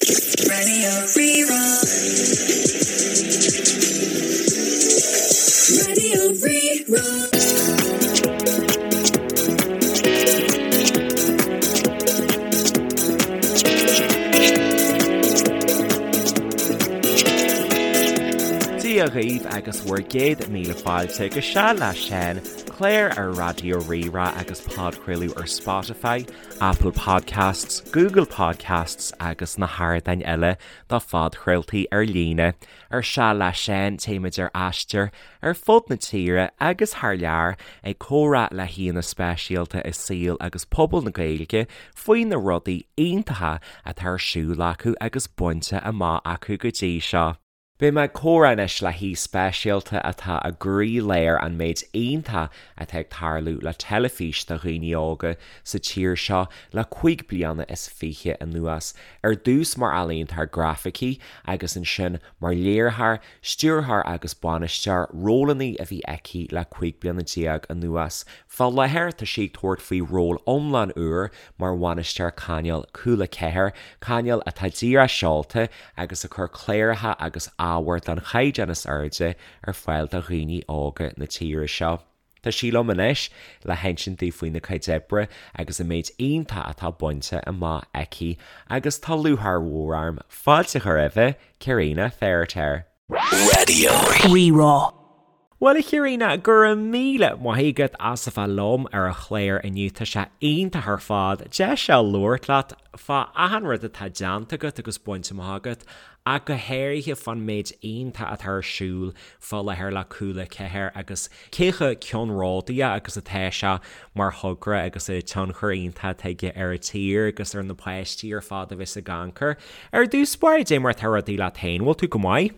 Radio Rí-Rá. Radio Rí-Rá. Dia dhaoibh agus bhur gcéad míle fáilte go Seal le Seán, clár ar Raidió Rí-Rá agus podchraoladh ar Spotify, Apple Podcasts, Google Podcasts agus na hardáin eile do phodchraoltaí ar líne. Ar Seal le Seán téimid ar aistear ar fud na tíre agus thar lear ag comhrá le haíonna speisialta i saol agus pobal na Gaeilge faoi na rudaí iontacha atá ar siúl acu agus bainte amach acu go dtí seo. Beidh mé ag comhrá anois le haoi speisialta atá i gcroílár an méid iontach atá ag tarlú le teilifís do dhaoine óga sa tír seo le 25 bliana anuas, ar dtús mar ealaíontóir grafaicí agus ansin mar léiritheoir, stiúrthóir agus bainisteoir, rólanna a bhí aici le 15 bliana anuas. Fá láthair tá sí ag tabhairt faoi ról iomlán úr mar bhainisteoir cainéil Cúla 4, cainéal atá díreach seolta agus ag cur cláracha agus ábhar den chaighdeán is airde ar fáil do dhaoine óga na tíre seo. Tá sí liom anois le hinsint dúinn faoina cuid oibre agus an méid iontach atá bainte amach aici agus tá lúcháir mhór orm fáilte a chur roimhe, Cairina Feiritéar. Radio. Rí-Rá. Bhuel a Chairina, go raibh míle maith agat as a bheith liom ar an chlár inniu, tá sé iontach ar fad deis a labhairt leat fá achan rud atá déanta agat agus bainte amach agat ach go háirithe fán méid iontach atá ar siúl fá láthair le Cúla 4 agus cé chomh ceannródaíoch agus atá sé mar thogra agus an tionchar iontach atá aige ar an tír agus ar na páistí ar fad a bheas ag amharc air. Ar dtús báire, dé mar atá rudaí leat féin, bhfuil tú go maith?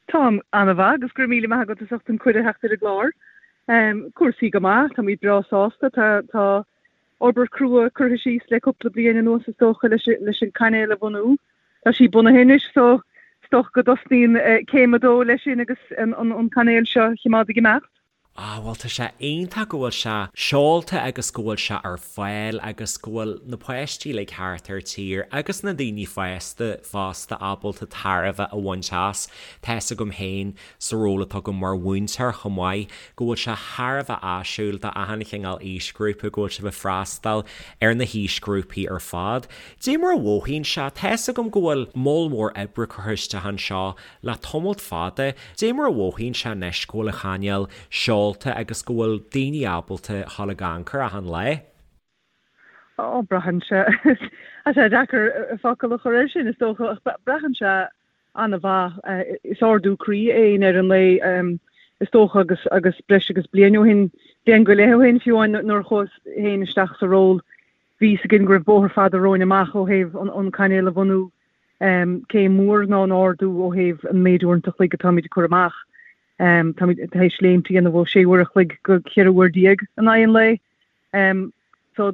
Táim an-mhaith agus go raibh míle maith agat as ucht an cuireadh theacht ar an gclár. Cúrsaí go maith, táimid breá sásta, tá tá obair crua curtha síos le cúpla bliain anuas is dócha leis leis an cainéal a bhunú. Tá sí bunaithe anois so is dócha go dtosnaíonn céim a dó leis sin agus an an cainéal seo a choimeád ag imeacht. Ah bhuel tá sé iontach go bhfuil sé seolta agus go bhfuil sé ar fáil agus go bhfuil na páistí uilig thart ar tír agus na daoine fásta fosta ábalta tairbhe a bhaint as. Tá fhios agam féin sa ról atá agam mar mhúinteoir chomh maith go bhfuil sé thar a bheith áisiúil do achan chineál aoisghrúpa go bhfuil sibh ag freastal ar na haoisghrúpaí ar fad. Dé mar a mhothaíonn sé, tá fhios agam go bhfuil moll mór oibre curtha isteach anseo Le tamalt fada, dé mar a mhothaíonn sé anois go bhfuil an chainéal seolta agus go bhfuil daoine ábalta dhul ag amharc air achan lá? Ó, braitheann sé, tá sé deacair focal a chur air sin is dócha, ach braitheann sé an-mhaith. Is ardú croí é i ndeireadh an lae is dócha agus agus breis agus bliain ó shin, bliain go leith ó shin fiú amháin nuair a chuas féin isteach sa ról, bhí fhios againn go raibh bóthar fada romhainn amach ó thaobh an cainéal a bhunú. Céim mhór ná an ardú ó thaobh an méid uaireanta a chloig atáimid ag cur amach. Táimid tar éis léimt a dhéanamh ó 6 uair a chloig go 14 uair in aghaidh an lae. So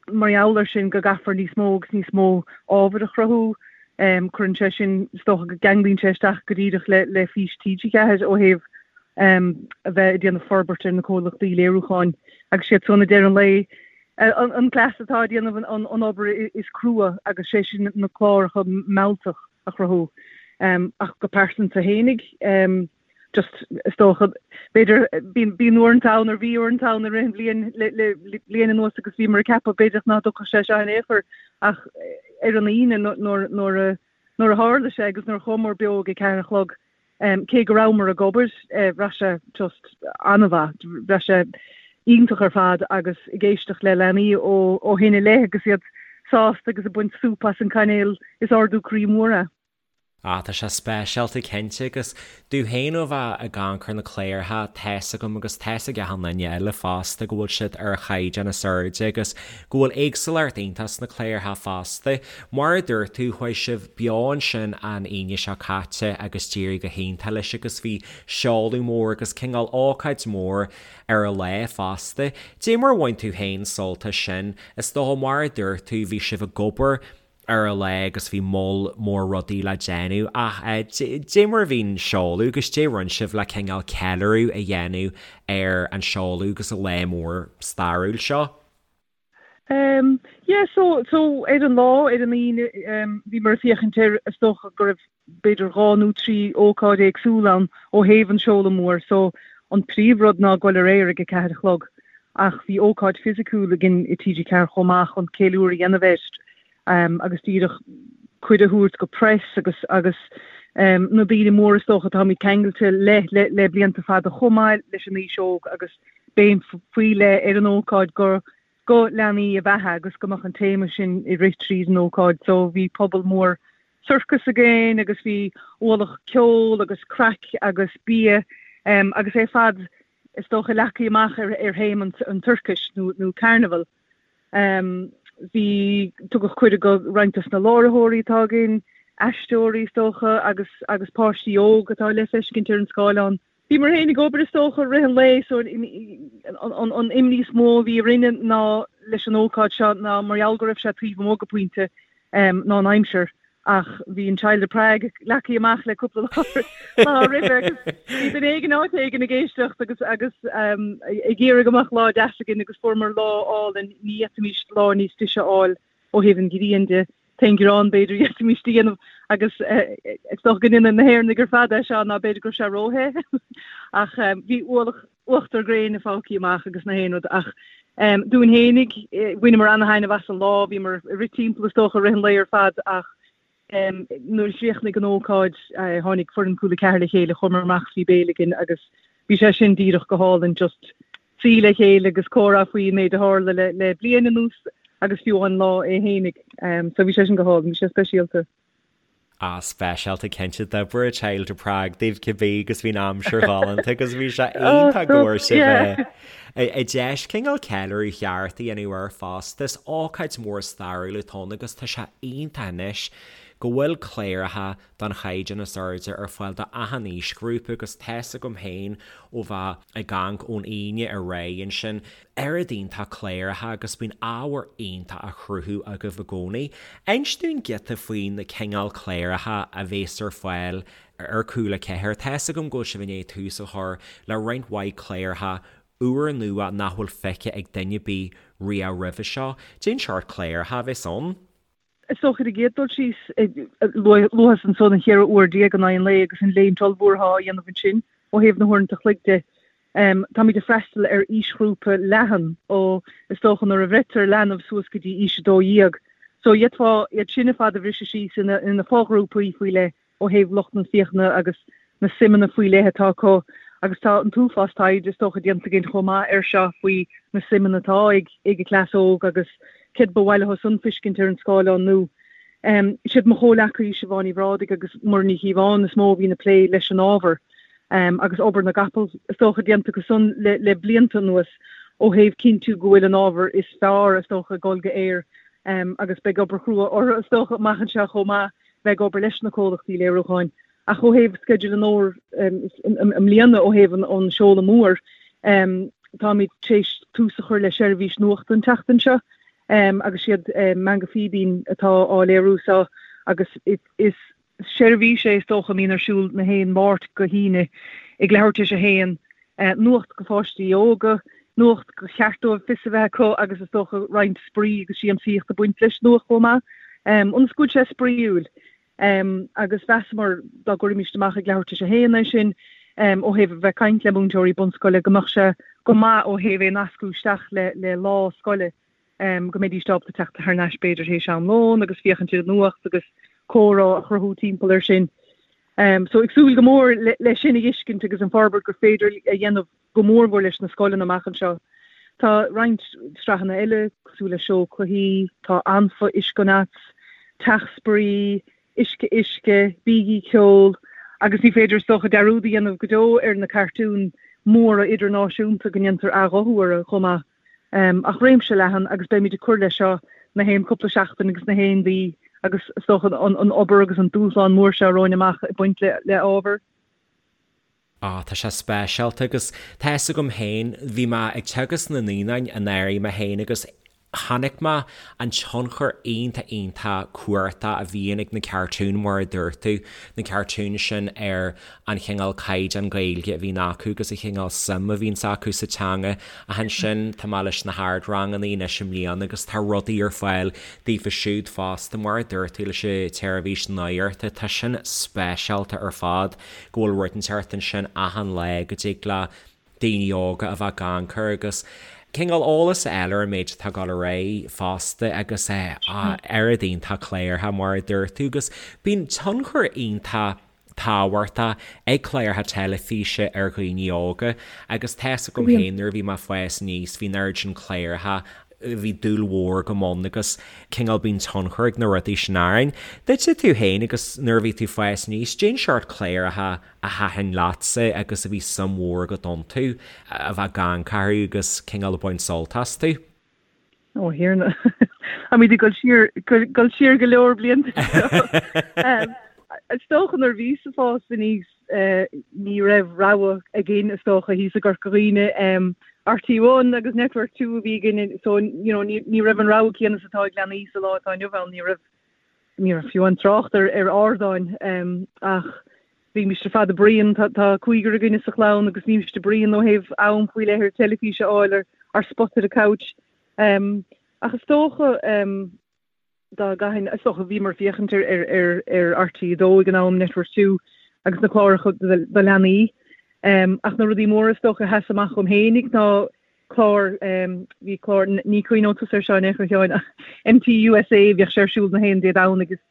mar gheall air sin go gcaithfear níos mó agus níos mó ábhair a chruthú. Cuireann sé sin, is dócha go gceanglaíonn sé isteach go díreach le le fís TG4 ó thaobh a bheith ag déanamh forbairt ar na comhlachtaí léiriúcháin agus siad san i ndeireadh an lae an cleas atá ag déanamh an obair is crua agus sé sin na cláracha mealltach a chruthú. Ach go pearsanta fhéinig, just is dócha, b'fhéidir, bíonn uaireanta ann or bhí uaireanta ann i rith an bhliain le bliain anuas agus bhíomar ag ceapadh b'fhéidir nach dtiocfadh sé seo in aon chor ach ar an Aoine nuair a nuair a tharla sé agus nuair a chuamar beo ag a ceathair a chlog, cé go rabhamar ag obair, bhraith sé just an-mhaith, bhraith sé iontach ar fad agus ag éisteacht le leanaí ó shin i leith agus iad sásta agus ag baint súp as an cainéal, is ardú croí mór é. Ah, tá sé speisialta cinnte agus domh féin ó bheith ag amharc ar na cláracha, tá's agam agus tá's ag achan duine eile fosta go bhfuil siad ar an chaighdeán is airde agus go bhfuil éagsúlacht iontach sna cláracha fosta. Mar a dúirt tú, chuaigh sibh beo ansin an Aoine seo caite agus d'éirigh go hiontach leis agus bhí seoladh mór agus cineál ócáid mhór ar an lá fosta. Dé mar a bhain tú féin sult as sin? Is dócha mar a dúirt tú, bhí sibh ag obair ar an lá agus bhí moll mór rudaí le déanamh ach dé mar a bhí an seoladh agus dé rinne sibh le cineál ceiliúradh a dhéanamh ar an seoladh agus an lá mór stairiúil seo? Um yeah so so ar an lá ar an Aoine um bhíomar ag féachaint ar is dócha go raibh b'fhéidir 2 nó 3 ócáid éagsúil ann ó thaobh an seoladh mór so an príomh rud ná goil ar aer ag a 4 a chlog ach bhí ócáid fisiciúil againn i TG4 chomh maith chun ceiliúradh a dhéanamh air um agus díreach cuireadh a thabhairt go press agus agus um na daoine móra is dócha atáimid ceangailte le le le blianta fada chomh maith leis an aois óg agus béim faoi leith ar an ócáid go go leanaí ab ea é agus go mbeadh an téama sin ag rith tríd an ócáid. So bhí puball mór sorcas againn agus bhí ualach ceoil agus craic agus bia agus é ar fad is dócha leagtha amach ar ar théama an tsorcais nó nó carnival. Bhí tugadh cuireadh go roinnt dos na láithreoirí atá againn, aisteoirí is dócha agus agus páistí óg atá le feiscint ar an scáileán. Bhíomar féin ag obair is dócha i rith an lae so an imní is mó a bhí orainne ná leis an ócáid seo ná mar gheall go raibh sé taobh amuigh go pointe ná an aimsir ach bhí an Child of Prague leagtha amach le cúpla lá roimhe agus bhí duine éigin áit éigin ag éisteacht agus agus ag iarraidh go mbeadh lá deas againn agus fuaireamar lá álainn ní fhéadfaimis lá níos deise a fháil ó thaobh an ghrian de. T-aon ghearán b'fhéidir a d'fhéadfaimis a dhéanamh agus is dócha go ndéanann na hÉireannaigh ar fad é seo ná b'fhéidir go raibh sé róthe ach bhí ualach uachtar gréine fágtha amach agus na haon rud ach dúinn fhéinig bhaineamar ana-thaitneamh as an lá, bhíomar ag rith timpeall is dócha i rith an lae ar fad ach Nuair a chríochnaigh an ócáid, tháinig foireann Cúla 4 le chéile, chuamar amach is bhí béile againn agus bhí sé sin díreach go hálainn, just suí le chéile agus comhrá faoi an méid a tharla le le bliain anuas agus fiú an lá é fhéinig. So bhí sé sin go hálainn, bhí sé speisialta. Ah, speisialta cinnte, d'oibrigh Child of Prague daoibh cibé agus bhí an aimsir ghalánta agus bhí sé iontach go bhfuair sibh an deis cineál ceiliúradh cheart a dhéanamh air fosta. Is ócáid mhór stairiúil atá ann agus tá sé iontach anois go bhfuil cláracha den chaighdeán is airde ar fáil do achan aoisghrúpa agus tá's agam féin ó bheith ag amharc ón Aoine ar aghaidh ansin, oiread iontach cláracha agus bíonn ábhar iontach á chruthú agaibh i gcónaí. Inis dúinn giota faoi na cineál cláracha a bhéas ar fáil ar Cúla 4. Tá's agam go bhfuil sibh i ndiaidh tús a chur le roinnt mhaith cláracha úrnua nach bhfuil feicthe ag duine ar bith riamh roimhe seo. Cén seort cláracha a bheas ann? Is dócha ar an gcéad dul síos, luaigh ansan an 14 uair in aghaidh an lae agus an léimt ollmhór atá á dhéanamh ansin ó thaobh na huaireanta chloig de. Táimid ag freastal ar aoisghrúpa leathan ó is dócha nuair a bhreitear leanbh suas go dtí aois 12. So d'fhéadfá iad sin ar fad a bhriseadh síos ina fo-ghrúpaí faoi leith. ó thaobh lucht na féachana agus na suimeanna faoi leith atá acu agus tá an t-uafás taighde is dócha déanta againn chomh maith air seo faoi na suimeanna atá ag ag an cleas óg agus céard ba mhaith leo san feiscint ar an scáileán nó siad mo chomhleacaí Siobhán Ní Bhrádaigh agus Muireann Ní Chíobháin is mó a bhíonn ag plé leis an ábhar agus obair na gcapall is dócha déanta acu san le le blianta anuas ó thaobh cinntiú go bhfuil an ábhar is fearr is dócha ag dul go aer agus beidh obair chrua orthu is dócha amach anseo chomh maith bheith ag obair leis na comhlachtaí léiriúcháin. Ach ó thaobh sceideal an fhómhair i mbliana, ó thaobh an seoladh mór, táimid tar éis tús a chur le seirbhís nuachta an tseachtain seo agus siad Meangadh Fíbín atá á léiriú seo agus is seirbhís é is dócha a mbíonn ar siúl na haon Máirt go hAoine ag leathuair tar éis a haon. Nuacht go pháistí óga, nuacht gur cheart dóibh fios a bheith acu agus is dócha roinnt spraoi agus siamsaíocht ag baint leis nuacht chomh maith, ionas go bhfuil sé spraíúil. Agus mheasamar dá gcuirfimíst amach ag leathuair tar éis a haon é sin, ó thaobh a bheith ag caint le múinteoirí bunscoile, go mbeadh sé go maith ó thaobh é nascadh isteach le lá scoile, go mbeidís ábalta teacht thar n-ais b'fhéidir théis am lóin agus féachaint ar an nuacht agus comhrá a chruthú timpeall air sin. So ag súil go mór le sin a fheiscint agus an forbairt gur féidir a dhéanamh go mór mhór leis na scoileanna amach anseo. Tá roinnt sraitheanna eile cosúil le Seó Cluichí, tá Anfa, Uisce Nuts, Teach Spraoi, Uisce Uisce, Bígí Ceol agus ní féidir is dócha dearúd a dhéanamh go deo ar na cartúin mhóra idirnáisiúnta go ndéantar athghuthú orthu chomh maith. Ach réimse leathan agus beimid ag cur leis seo na haon cúpla seachtain agus na haon mhí agus is dócha an obair agus an dúshlán mór seo romhainn amach ag baint le ábhar. Á, tá sé speisialta agus tá fhios agam féin, bhí mé ag teagasc na naíonáin anuraidh mé féin agus. Chonaic mé an tionchar iontach iontach cumhachtach a bhíonn ag na cartúin mar a dúirt tú, na cartúin sin ar an chineál caighdeán Gaeilge a bhíonn acu agus an chineál suim a bhíonns acu sa teanga. Ach ansin tá mé leis na hardranganna anois i mbliana agus tá rudaí ar fáil daofa siúd fosta mar a dúirt tú leis an tseirbhís nuachta, tá sin speisialta ar fad go bhfuil rud inteacht ansin achan lá go dtig le daoine óga a bheith ag amharc air agus cineál eolas a fháil ar an méid atá ag dul ar aghaidh fosta agus oiread iontach cláracha mar a dúirt tú agus bíonn tionchar iontach tábhachtach ag cláracha teilifíse ar dhaoine óga agus tá's agam féin nuair a bhí mé ag fás aníos bhí an oiread sin cláracha bhí dúil mhór agam ann agus cineál bíonn tionchar ag na rudaí sin orainn. Duitse tú féin agus nuair a bhí tú ag fás aníos, cén seort cláracha a thaitin leatsa agus a bhí suim mhór agat iontu, a bheith ag amharc orthu agus cineál ag baint sult astu? Ó, a Thiarna. Táimid ag dul siar, dul siar go leor blianta anseo. Is dócha nuair a bhíos ag fás aníos ní raibh rogha againn is dócha thíos i gCorca Dhuibhne. RTÉ One agus Network 2 a bhí againn so you know ní raibh an rogha céanna is atá ag leanaí sa lá atá inniu ann. Ní raibh ní raibh fiú an trácht ar ar ardáin ach bhímis ar fad ag bruíon, tá cúigear againne sa chlann agus bhímis ag bruíon ó thaobh am faoi leith ar teilifís a fháil ar ár spot ar an couch. Ach is dócha dá gcaithfinn, is dócha bhíomar ag féachaint ar ar ar RTÉ 2 ag an am, Network 2 agus na cláracha do leanaí. Ach na rudaí móra is dócha a sheas amach dhom fhéinig ná clár, bhí clár, ní cuimhneoidh tusa air seo in aon chor a Sheáin, ach MTUSA, bhíodh sé ar siúl na haon Dé Domhnaigh agus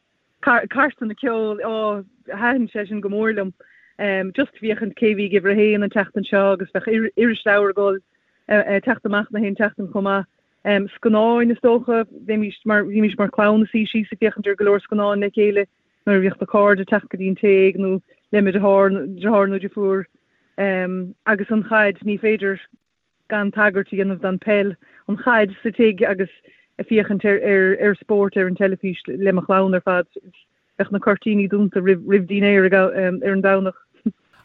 cairteanna ceoil, á, thaitin sé sin go mór liom. Just féachaint cé bhí ag uimhir a haon an tseachtain seo agus bheadh irisleabhar ag dul teacht amach na haon tseachtain chomh maith. Scannáin is dócha, bhímís mar, bhímís mar chlann ag suí síos ag féachaint ar go leor scannán le chéile nuair a bhíodh na cairde ag teacht go dtí an tigh nó le mo dheartháir, deartháir nó deirfiúr. Agus an chaid, ní féidir gan tagairt a dhéanamh don peil, an chaid sa tigh agus ag féachaint ar ar spórt ar an teilifís le mo chlann ar fad. Bheadh na cuirtíní dúnta roimh roimh dinnéar ar an Domhnach.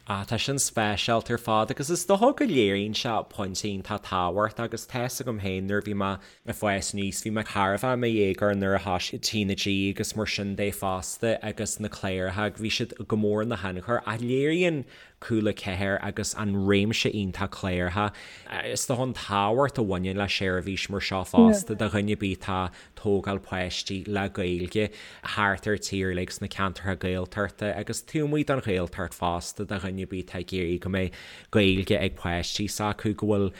Ah, tá sin speisialta ar fad agus is dócha go léiríonn sé pointe iontach tábhachtach agus tá's agam féin nuair a bhí mé ag fás aníos, bhí mé thar a bheith i mo dhéagóir nuair a thosaigh TnaG agus mar sin de fosta agus na cláracha, bhí siad go mór ina thionchar ach léiríonn Cúla 4 agus an réimse iontach cláracha. Is dócha an tábhacht a bhaineann le seirbhís mar seo fosta do dhuine ar bith atá ag tógáil páistí le Gaeilge thart ar tír uilig sna ceantracha Gaeltachta agus taobh amuigh den Ghaeltacht fosta do dhuine ar bith atá ag iarraidh go mbeidh Gaeilge ag páistí s'acu go bhfuil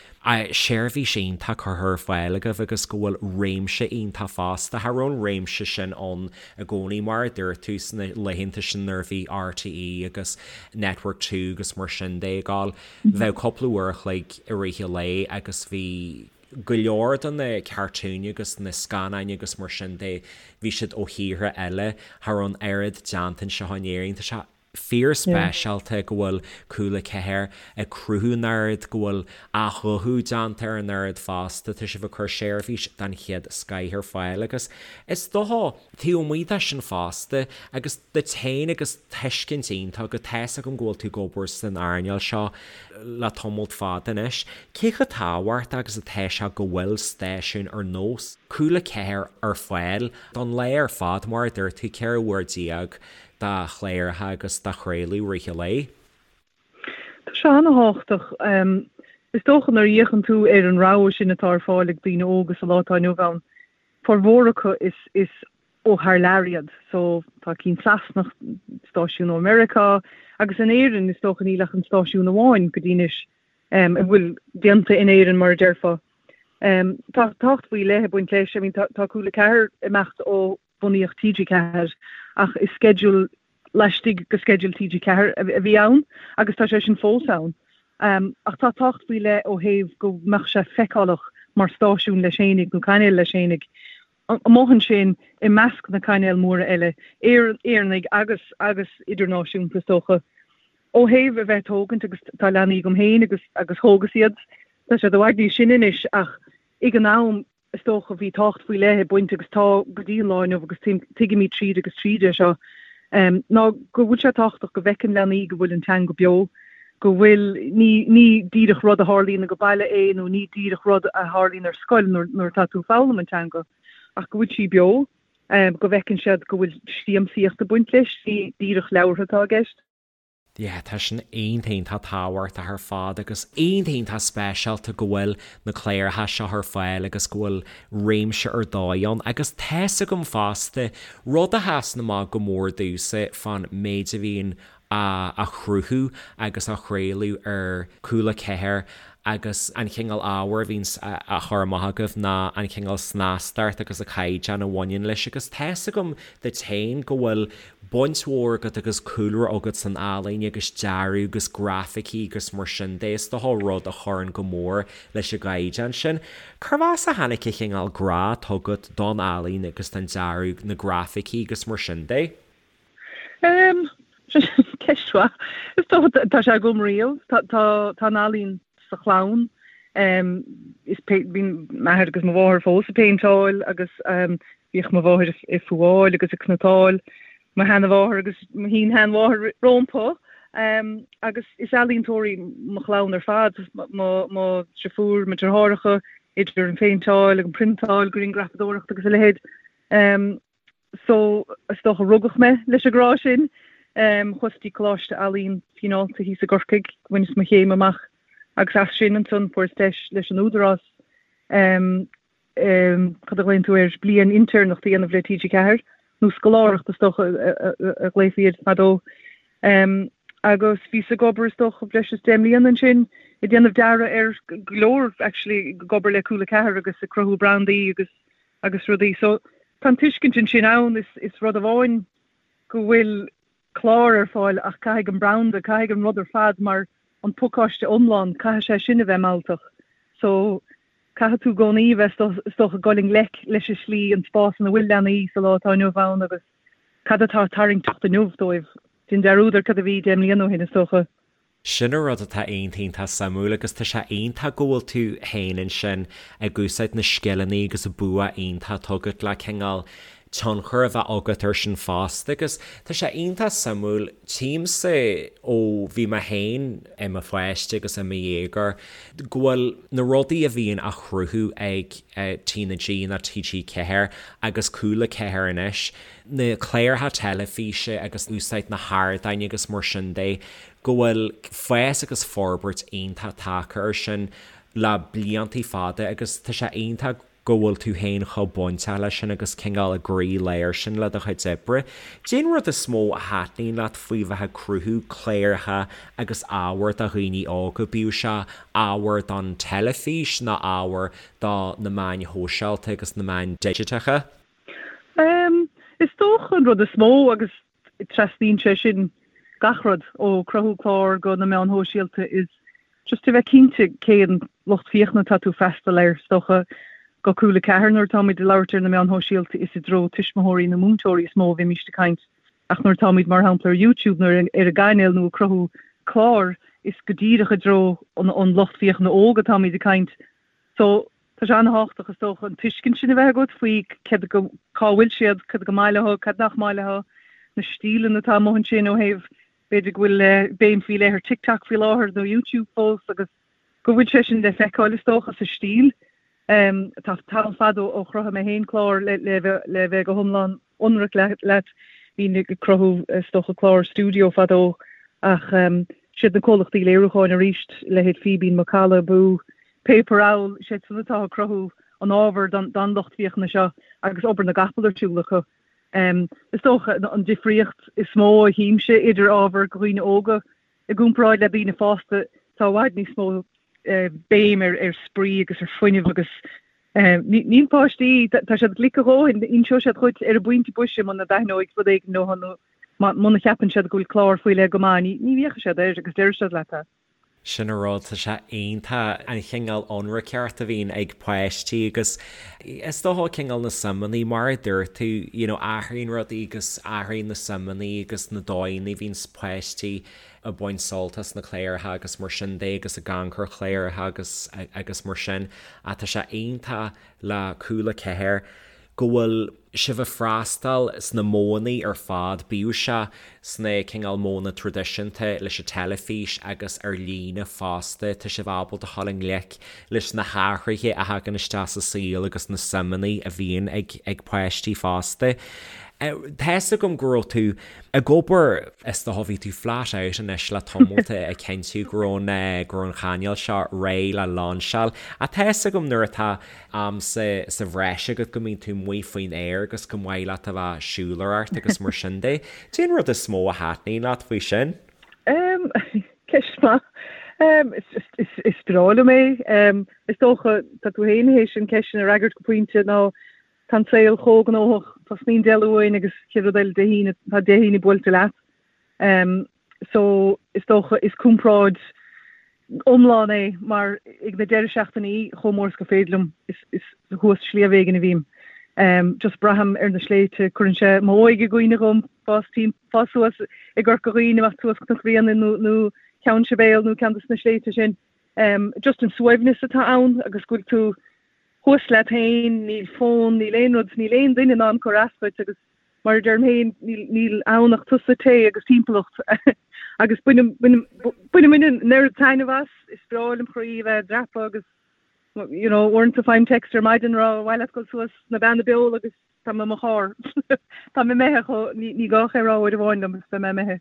seirbhís iontach curtha ar fáil agaibh agus go bhfuil réimse iontach fosta. Cha raibh an réimse sin ann i gcónaí mar a dúirt tú sna laethanta sin nuair a bhí RTÉ agus Network 2 agus mar sin de ag gabháil. Bheadh cúpla uair a chloig i rith an lae agus bhí go leor de na cartúin agus na scannáin agus mar sin de, bhí siad ó thíortha eile. Cha raibh an oiread déanta anseo in Éirinn. Tá sé fíorspeisialta go bhfuil Cúla 4 ag cruthú an oiread, go bhfuil athghuthú déanta ar an oiread fosta, tá sibh ag cur seirbhís den chéad scoith ar fáil agus is dócha, taobh amuigh de sin fosta, agus duit féin agus tuiscint iontach agat, tá's agam go bhfuil tú ag obair san earnáil seo le tamalt fada anois, cé chomh tábhachtach agus atá sé go bhfuil stáisiún ar nós Cúla 4 ar fáil don lá ar fad, mar a dúirt tú, 14 uair de chláracha agus de chraoladh i rith an lae. Tá sé an-thábhachtach. Is dócha nuair a fhéachann tú ar an rogha sin atá ar fáil ag daoine óga sa lá atá inniu ann, formhór acu is is ó thar lear iad. So tá cinn Sasanach, stáisiún ó Meiriceá, agus in Éirinn is dócha níl ach an stáisiún amháin go dtí anois a bhfuil déanta in Éirinn mar a déarfá. Tá tábhacht faoi leith ag baint leis. I mean tá Cúla 4 ag imeacht ó bunaíodh TG4 ach is sceideal laistigh de sceideal TG4 a bhí ann agus tá sé sin fós ann. Ach tá tábhacht faoi leith ó thaobh go mbeadh sé feiceálach mar stáisiún leis fhéinig nó cainéal leis fhéinig amuigh ansin i measc na cainéal móra eile, Éireannaigh agus agus idirnáisiúnta is dócha. Ó thaobh a bheith ag tógaint agus tá leanaí agam féin agus agus thógas iad, tá siad i bhfad níos sine anois ach ag an am is dócha, bhí tábhacht faoi leith ag baint, agus tá go dtí an lá inniu agus tuigimid tríd agus tríd é seo, ná go bhfuil sé tábhachtach go bhfeiceann leanaí go bhfuil an teanga beo. Go bhfuil, ní, ní díreach rud a tharlaíonn ag baile é nó ní díreach rud a tharlaíonn ar scoil nuair, nuair atá tú ag foghlaim an teanga, ach go bhfuil sí beo, go bhfeiceann siad go bhfuil siamsaíocht ag baint leis, ní díreach leabhartha atá i gceist. Yeah, tá sin iontach iontach tábhachtach ar fad agus iontach iontach speisialta go bhfuil na cláracha seo ar fáil agus go bhfuil réimse ar dóigh ann agus tá's agam fosta, rud a sheasann amach go mór domhsa fán méid a bhíonn á chruthú agus á chraoladh ar Cúla 4 agus an chineál ábhair a bhíonns á chur amach agaibh ná an chineál snastacht agus an caighdeán a bhaineann leis agus tá's agam duit féin go bhfuil baint mhór agat agus cúlra agat san ealaín agus dearadh agus grafaicí agus mar sin de, is dócha rud a chuireann go mór leis an gcaighdeán sin. Cérbh as a tháinig an chineál grá atá agat don ealaín agus don dearadh, na grafaicí agus mar sin de? Em, ceist mhaith. Is dócha tá sé agam riamh. Tá tá tá an ealaín sa chlann. Em, is pé bhí m'athair agus mo mháthair fós ag péinteáil agus em bhíodh mo mháthair ag fuáil agus ag cniotáil mo sheanmháthair agus mo shin-sheanmháthair rompu. Em, agus is ealaíontóirí mo chlann ar fad, mo mo deirfiúr, mo deartháireacha, idir an phéinteáil agus an priontáil, grianghrafadóireacht agus a leithéid. Em, So, is dócha rugadh mé leis an grá sin. Chuas dtí Coláiste Ealaíon Fionnálta thíos i gCorcaigh, bhaineas mo chéim amach agus as sin ansan fuaireas deis leis an Údarás, cad a ghlaonn tú air, bliain intéirneachta a dhéanamh le TG4, nó scoláireacht is dócha a ghlaofaí air fadó. Agus bhíos ag obair is dócha breis is 10 mbliana ansin ag déanamh dearadh ar go leor actually ag obair le Cúla 4 agus ag cruthú brandaí agus agus rudaí. So tá an tuiscint ansin ann, is, is rud amháin go bhfuil clár ar fáil ach caithfidh an branda, caithfidh an rud ar fad mar an pacáiste iomlán, caithfidh sé sin a bheith mealltach. So caithfidh tú i gcónaí a bheith is dócha ag dul i ngleic leis an slí, an spás ina bhfuil leanaí sa lá atá inniu ann agus cad atá tarraingteach inniu dóibh. Déan dearúd ar cad a bhí 10 mbliana ó shin is dócha. Sin an rud atá iontach iontach suimiúil agus tá sé iontach go bhfuil tú féin ansin ag úsáid na scileanna agus an bua iontach atá agat le cineál tionchar a bheith agat air sin fosta agus tá sé iontach suimiúil, tchímse ó bhí mé féin i mo pháiste agus i mo dhéagóir go bhfuil na rudaí a bhíonn á chruthú ag TnaG nó TG4 agus Cúla 4 anois, na cláracha teilifíse agus úsáid na hardáin agus mar sin de, go bhfuil fás agus forbairt iontach tagtha air sin le bliantaí fada agus tá sé iontach go bhfuil tú féin chomh bainteach leis sin agus cineál i gcroí-lár sin le do chuid oibre. Cén rud is mó a thaitníonn leat faoi bheith ag cruthú cláracha agus ábhar do dhaoine óga, bíodh sé ábhar don teilifís nó ábhar do na meáin shóisialta agus na meáin digiteacha? Is dócha an rud is mó agus trasnaíonn sé sin gach rud, ó cruthú clár go na meáin shóisialta, is just a bheith cinnte cén lucht féachana atá tú freastal air. Is dócha go Cúla 4 nuair atáimid ag labhairt ar na meáin shóisialta is i dtreo tuismitheoirí nó múinteoirí is mó a bhímíst ag caint ach nuair atáimid mar shampla ar YouTube nó ar an gcainéal nó ag cruthú clár is go díreach i dtreo an lucht féachana óg atáimid ag caint. So Tá sé an-thábhachtach, is dócha, an tuiscint sin a bheith agat faoi céard go, cá bhfuil siad, cad go maith leo, cad nach maith leo, na stíleanna atá amuigh ansin ó thaobh, b'fhéidir go bhfuil béim faoi leith ar TikTok faoi láthair nó YouTube fós agus go bhfuil sé sin le feiceáil, is dócha, sa stíl. Tá tamall fada ó chruthaigh mé féin clár le le bheith go hiomlán ionraic leat. Bhínn ag cruthú, is dócha, clár stiúideo fadó ach siad na comhlachtaí léiriúcháin arís, leithéid Fíbín, Macalla, Boo, Paper Owl, siad san atá ag cruthú an ábhair don lucht féachana seo agus obair na gcapall ar siúl acu. Is dócha an difríocht is mó a chímse idir ábhar do dhaoine óga i gcomparáid le daoine fásta, tá i bhfad níos mó béim ar spraoi agus ar fuinneamh agus níl páistí, tá siad glic a dhóthain, inseoidh siad dhuit ar an bpointe boise muna dtaitneoidh rud éigin leo nó muna cheapann siad go bhfuil clár faoi leith go maith, ní fhéachfaidh siad air agus déarfaidh siad leat é. Sin an rud, tá sé iontach an chineál ionraiceacht a bhíonn ag páistí agus is dócha cineál na suimeanna, mar a dúirt tú, you know athraíonn rudaí agus athraíonn na suimeanna agus na dóigheanna a bhíonns páistí ag baint sult as na cláracha agus mar sin de agus ag amharc ar chláracha agus agus mar sin ach tá sé iontach le Cúla 4 go bhfuil. sibh ag freastal sna modhanna ar fad, bíodh sé sna cineál modhanna traidisiúnta leis an teilifís agus ar líne fosta, tá sibh ábalta dhul i ngleic leis na hathruithe a thagann isteach sa saol agus na suimeanna a bhíonn ag ag páistí fosta. Tá's agam go raibh tú ag obair, is dócha bhí tú flat out anois le tamalt ag cinntiú go raibh an go raibh an chainéal seo réidh le lainseáil ach tá's agam nuair atá am sa sa bhreis agat go mbíonn tú amuigh faoin aer agus go maith leat a bheith ag siúlóireacht agus mar sin de. Cén rud is mó a thaitníonn leat faoi sin? Em, ceist mhaith. Em, is just, is, is breá liom é. Em, is dócha, tá tú féin théis an ceist sin a fhreagairt go pointe ná tá an saol chomh gnóthach, tosnaíonn Dé Luain agus chéad rud eile Dé hAoine, tá Dé hAoine buailte leat. Em, so is dócha is comparáid iomlán é mar ag na deireadh seachtainí chomh mór is gur féidir liom is is thuas sliabh éigin a bhím. Em, just braithim ar na sléibhte, cuireann sé m'óige i gcuimhne dhom, fás tim fás suas i gCorca Dhuibhne, imeacht suas Cnoc Bhréanainn nó nó Ceann Sibéal nó ceann de na sléibhte sin. Em, just an suaimhneas atá ann agus go bhfuil tú thuas leat féin, níl fón, níl aon rud, níl aon duine in ann cur as dhuit agus mar a deirim féin, níl, níl ann ach tusa, tae agus timpeallacht agus bainim, bainim, bainim an oiread taitneamh as, is breá lem chroí a bheith ag dreapadh agus you know, uaireanta faighim text ar maidin rá ar mhaith leat dul suas na Beanna Beola agus tá mé i mo charr. Tá mé imithe chomh, ní, ní gá ach é a rá uair amháin liom agus beidh mé imithe.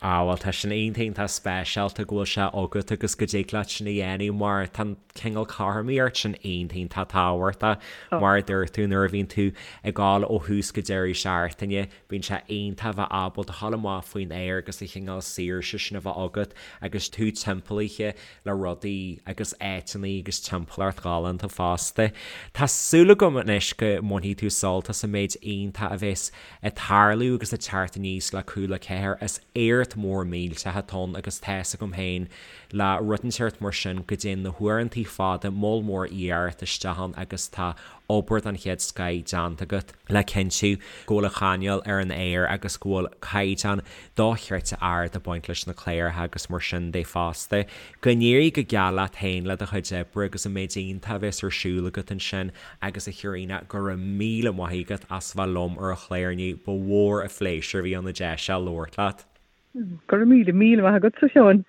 Ah bhuel tá sin iontach iontach speisialta go bhfuil sé agat agus go dtig leat sin a dhéanamh mar tá an cineál cothromaíocht sin iontach iontach tábhachtach mar a dúirt tú nuair a bhíonn tú ag dul ó thús go deireadh seachtaine bíonn sé iontach a bheith ábalta dhul amach faoin aer agus an chineál saoirse sin a bheith agat agus tú timpeallaithe le rudaí agus áiteanna agus timpeallacht ghalánta fosta. Tá súil agam anois go mbainfidh tú sult as an méid iontach a bheas ag tarlú agus ag teacht aníos le Cúla 4. Is éacht mór millteach atá ann agus tá's agam féin le rud inteacht mar sin go dtéann na huaireantaí fada moll mór iarracht isteach ann agus tá obair den chéad scoith déanta agat le cinntiú go bhfuil an chainéal ar an aer agus go bhfuil caighdeán dochreidte ard ag baint leis na cláracha agus mar sin de fosta. Go n-éirí go geal leat féin le do chuid oibre agus an méid iontach a bheas ar siúl agat ansin agus a Chaitríona, go raibh míle maith agat as bheith liom ar an chlár inniu, ba mhór an phléisiúr a bhí ann an deis seo labhairt leat. Go raibh míle, míle maith agatsa, a Sheáin.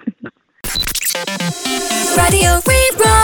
Raidió Rí-Rá.